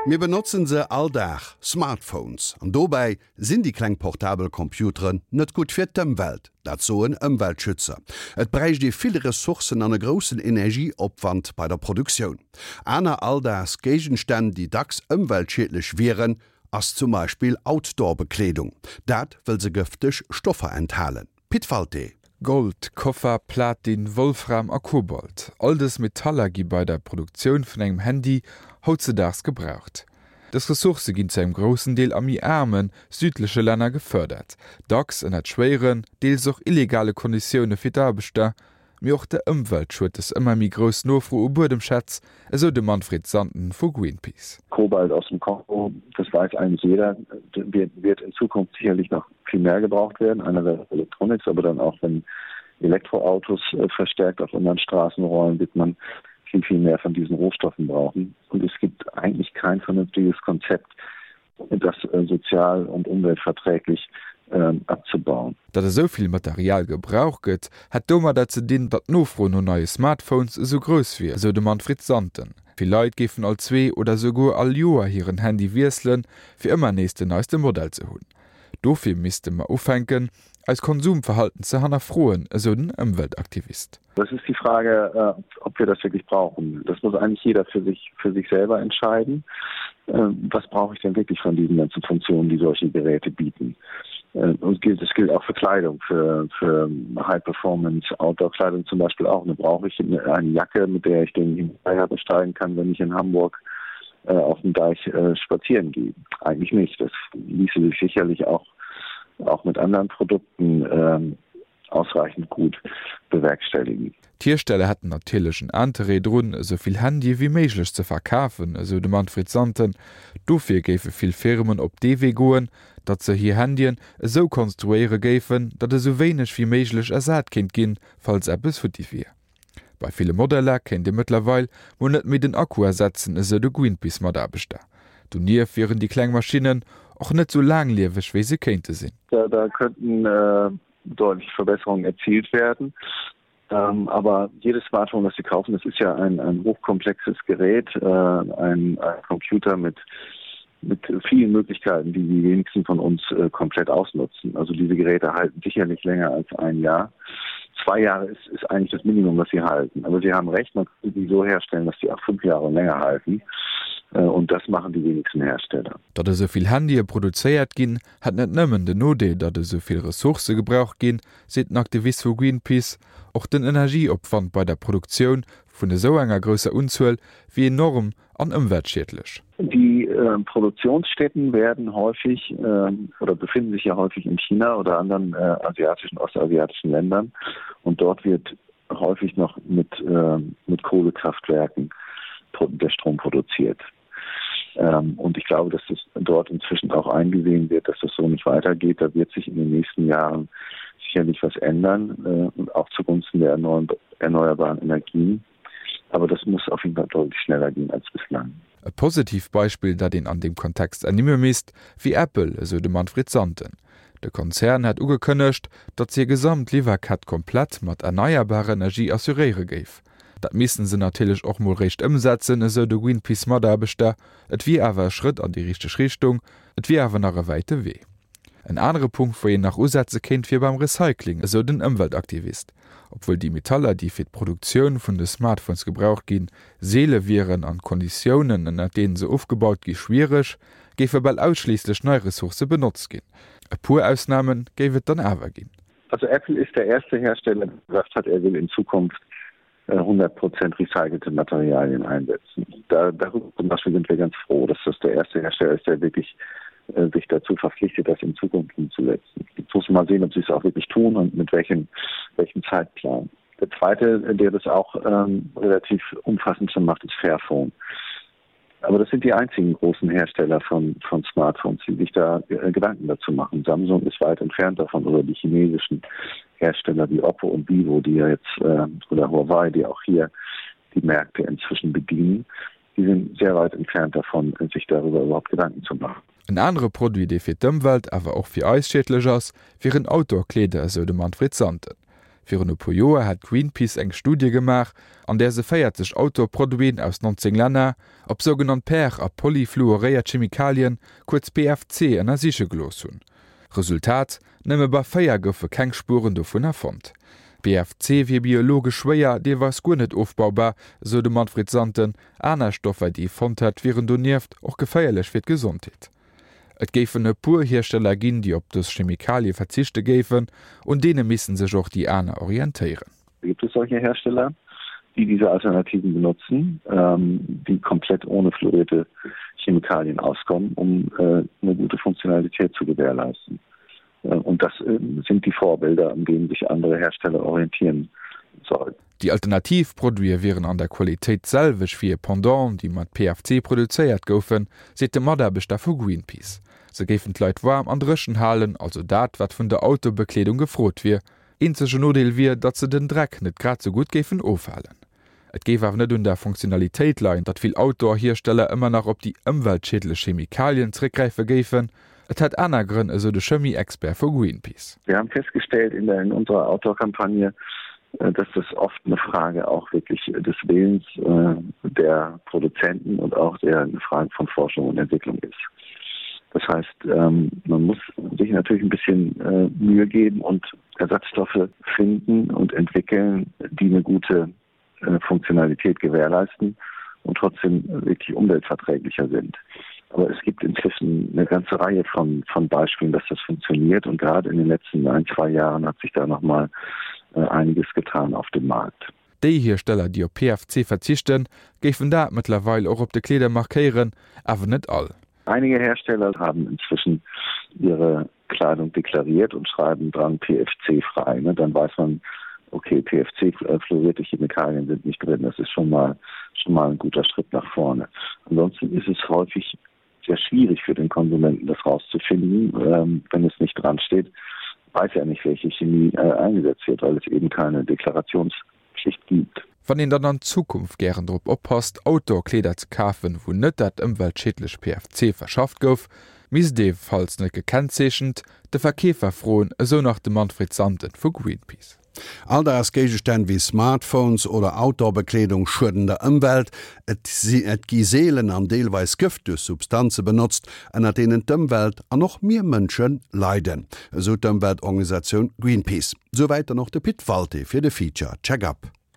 Mir benotzen se all Dag, Smartphones. An dobäi sinn déi kleng portabel Computeren net gutt fir d'Ëmwelt. Dat soen Ëmweltschützer. Et bräicht ee vill Ressourcen an e groussen Energieopwand bei der Produktioun. Aner Alldagsgéigenstänn, déi dacks ëmweltschiedlech wieren, ass zum Beispill Outdoor-Bekleedung. Dat wëll se gëfteg Stoffer enthalen. Pit Walté. Gold, Koffer, Platin, Wolfram a Kobalt, all dës Metaller gi bei der Produktioun vun engem Handy hautzedaags gebraucht. Dës Ressourcë ginn zu engem groussen Deel a méi aarme südleche Länner gefërdert, dacks ënnert schwéieren, deels och illegale Konditioune fir d'Aarbechter. Mee och der Ëmwelt schued dës ëmmer méi grouss Nofro u Buedemschätz, esou de Manfred Sanden vu Greenpeace. Kobalt aus dem Kongo, das weiß eigentlich jeder, wird in Zukunft sicherlich noch viel mehr gebraucht werden, einerseits Electronics, aber dann auch wenn Elektroautos äh, verstärkt auf unseren Straßen rollen, wird man viel, viel mehr von diesen Rohstoffen brauchen. Und es gibt eigentlich kein vernünftiges Konzept, das äh, sozial und umweltverträglich ähm, abzubauen. Datt esou vill Material gebraucht gëtt, hätt domadder ze dinn, datt d'Nofro no neie Smartphones esou grouss wier, esou de Manfred Santen. Vill Leit géifen all zwee oder esouguer all Joer hiren Handy wiesselen, fir ëmmer nees den neiste Modell ze hunn. Dofir misste mer ufänken, eist Konsumverhalten ze hannerfroen, esou den Ëmweltaktivist. Das ist die Frage, äh, ob wir das wirklich brauchen. Das muss eigentlich jeder für sich, für sich selber entscheiden. Ähm, was brauche ich denn wirklich von diesen ganzen Funktionen, die solche Geräte bieten? Äh, und gilt, das gilt auch für Kleidung, für, für High Performance Outdoor-Kleidung zum Beispiel auch. Da brauche ich eine, eine Jacke, mit der ich den Himalaya besteigen kann, wenn ich in Hamburg äh, auf dem Deich äh, spazieren gehe. Eigentlich nicht. Das ließe sich sicherlich auch, auch mit anderen Produkten ähm, ausreichend gut bewerkstelligen. D'Hiersteller hätten natierlech en Interêt drun, esou vill Handye wéi méiglech ze verkafen, esou de Manfred Santen. Dofir géife vill Firmen op dee Wee goen, datt se hir Handyen esou konstruéiere géifen, datt esou wéineg wéi méiglech ersat kéint ginn, falls eppes futti wier. Bei ville Modeller kéint ee mëttlerweil mol net méi den Akku ersetzen, esou de Greenpeace-Mataarbechter. Donieft wieren déi kleng Maschinnen och net sou laanglieweg, wéi se kéinte sinn. Da könnten deutliche Verbesserungen erzielt werden. Ähm, aber jedes Smartphone, das Sie kaufen, das ist ja ein, ein hochkomplexes Gerät, äh, ein, ein Computer mit, mit vielen Möglichkeiten, die die wenigsten von uns äh, komplett ausnutzen. Also diese Geräte halten sicherlich länger als ein Jahr. Zwei Jahre ist, ist eigentlich das Minimum, was sie halten. Aber Sie haben recht, man kann sie so herstellen, dass sie auch fünf Jahre länger halten. Äh, und das machen die wenigsten Hersteller. Datt esou vill Handye produzéiert ginn, hätt net nëmmen den Nodeel, datt esou vill Ressourcë gebraucht ginn, seet den Aktivist vu Greenpeace. Och den Energieopwand bei der Produktioun vun esou enger grousser Unzuel wier enorm an ëmweltschiedlech. Die Produktionsstätten werden häufig oder befinden sich ja häufig in China oder anderen asiatischen, ostasiatischen Ländern und dort wird häufig noch mit, mit Kohlekraftwerken der Strom produziert. Ähm, und ich glaube, dass das dort inzwischen auch eingesehen wird, dass das so nicht weitergeht. Da wird sich in den nächsten Jahren sicherlich was ändern äh, und auch zugunsten der erneuerbaren Energien. Aber das muss auf jeden Fall deutlich schneller gehen als bislang. E positivt Beispill, dat een an deem Kontext ernimme misst, wier Apple, esou de Manfred Santen. De Konzern hätt ugekënnegt, datt hir gesamt Liwwerkett komplett mat erneierbarer Energie assuréiere géif. Dat missten se natierlech och mol réischt ëmsetzen, esou de Greenpeace-Mataarbechter. Et wier awer e Schrëtt an déi richteg Richtung, et wier awer nach e wäite Wee. En anere Punkt, wou een nach usetze kéint, wier beim Recycling, esou den Ëmweltaktivist. Obwuel déi Metaller, déi fir d'Produktioun vun de Smartphones gebraucht ginn, seele wieren an d'Konditiounen, ënner deenen se ofgebaut gi schwiereg, géife bal ausschliisslech nei Ressourcë benotzt ginn. E puer Ausname géif et dann awer ginn. Also Apple ist der erste Hersteller, der gesagt hat, er will in Zukunft 100 äh, Prozent recycelte Materialien einsetzen. Da, darüber zum Beispiel sind wir ganz froh, dass das der erste Hersteller ist, der wirklich äh, sich dazu verpflichtet, das in Zukunft umzusetzen. Jetzt muss man mal sehen, ob sie es auch wirklich tun und mit welchem, welchem Zeitplan. Der zweite, der das auch ähm, relativ umfassend schon macht, ist Fairphone. Aber das sind die einzigen großen Hersteller von, von Smartphones, die sich da äh, Gedanken dazu machen. Samsung ist weit entfernt davon oder die chinesischen Hersteller wie Oppo und Vivo, die ja jetzt äh, oder Huawei, die auch hier die Märkte inzwischen bedienen, die sind sehr weit entfernt davon, sich darüber überhaupt Gedanken zu machen. En anere Produit, dee fir d'Ëmwelt, awer och fir eis schiedlech ass, wieren Outdoor-Kleeder, esou de Manfred Santen. Virun e puer Joer hat Greenpeace eng Studie gemaach, an där se 40 Outdoor-Produiten aus 19 Länner op sougenannt per a polyfluoréiert Chemikalien, kuerz PFC, ënnersiche gelooss hunn. Resultat, Nëmme bei 4 goufe keng Spueren dovunner fonnt. PFC wier biologesch schwéier, deelweis guer net ofbaubar, esou de Manfred Santen. Aner Stoffer, déi ee fonnt hätt, wieren donieft och geféierlech fir d'Gesondheet. Et géifen e puer Hiersteller ginn, déi op dës Chemikalie verzichte géifen. Un deene misste sech och déi aner orientéieren. Gibt es solche Hersteller, die diese Alternativen benutzen, ähm, die komplett ohne fluorierte Chemikalien auskommen, um äh, eine gute Funktionalität zu gewährleisten. Äh, und das äh, sind die Vorbilder, an denen sich andere Hersteller orientieren sollten. Déi alternativ Produite wieren an der Qualitéit d'selwecht wéi hir Pendant, déi mat PFC produzéiert goufen, seet de Mataarbechter vu Greenpeace. Se géifen d'Leit waarm an dréchen halen, also dat, wat vun der Autobekleedung gefrot wier. Eenzegen Nodeel wier, datt se den Dreck net grad sou gutt géifen ofhalen. Et géif awer net un der Funktionalitéit leien, datt vill Outdoor-Hiersteller ëmmer nach op déi ëmweltschiedlech Chemikalien zeréckgräife géifen. Et hätt aner Grënn, esou de Chemie-Expert vu Greenpeace. Wir haben festgestellt in der in unserer Outdoor-Kampagne, äh, dass das oft eine Frage auch wirklich des Willens äh, der Produzenten und auch der eine Frage von Forschung und Entwicklung ist. Das heißt, ähm, man muss sich natürlich ein bisschen äh, Mühe geben und Ersatzstoffe finden und entwickeln, die eine gute äh, Funktionalität gewährleisten und trotzdem wirklich umweltverträglicher sind. Aber es gibt inzwischen eine ganze Reihe von, von Beispielen, dass das funktioniert und gerade in den letzten ein, zwei Jahren hat sich da noch mal äh, einiges getan auf dem Markt. Déi Hiersteller, déi op PFC verzichten, géifen dat mëttlerweil och op de Kleeder markéieren, awer net all. Einige Hersteller haben inzwischen ihre Kleidung deklariert und schreiben dran PFC frei. Ne? Dann weiß man, okay, PFC äh, fluorierte Chemikalien sind nicht drin. Das ist schon mal, schon mal ein guter Schritt nach vorne. Ansonsten ist es häufig sehr schwierig für den Konsumenten, das rauszufinden, ähm, wenn es nicht dran steht, weiß er nicht, welche Chemie äh, eingesetzt wird, weil es eben keine Deklarationspflicht gibt. Wann een dann an Zukunft gären drop oppasst, Outdoor-Kleeder ze kafen, wou net dat ëmweltschiedlech PFC verschafft gouf, misst ee, falls net gekennzeechent, de Verkeefer froen, esou nach de Manfred Santen vu Greenpeace. Alldagsgéigestänn wéi Smartphones oder Outdoor-Bekleedung schueden der Ëmwelt. Et gi seelen an deelweis gëfteg Substanze benotzt, ënner deenen d'Ëmwelt an och mir Mënsche leiden, esou d'Ëmweltorganisatioun Greenpeace. Souwäit dann och de Pit Walté fir de Feature Check-up.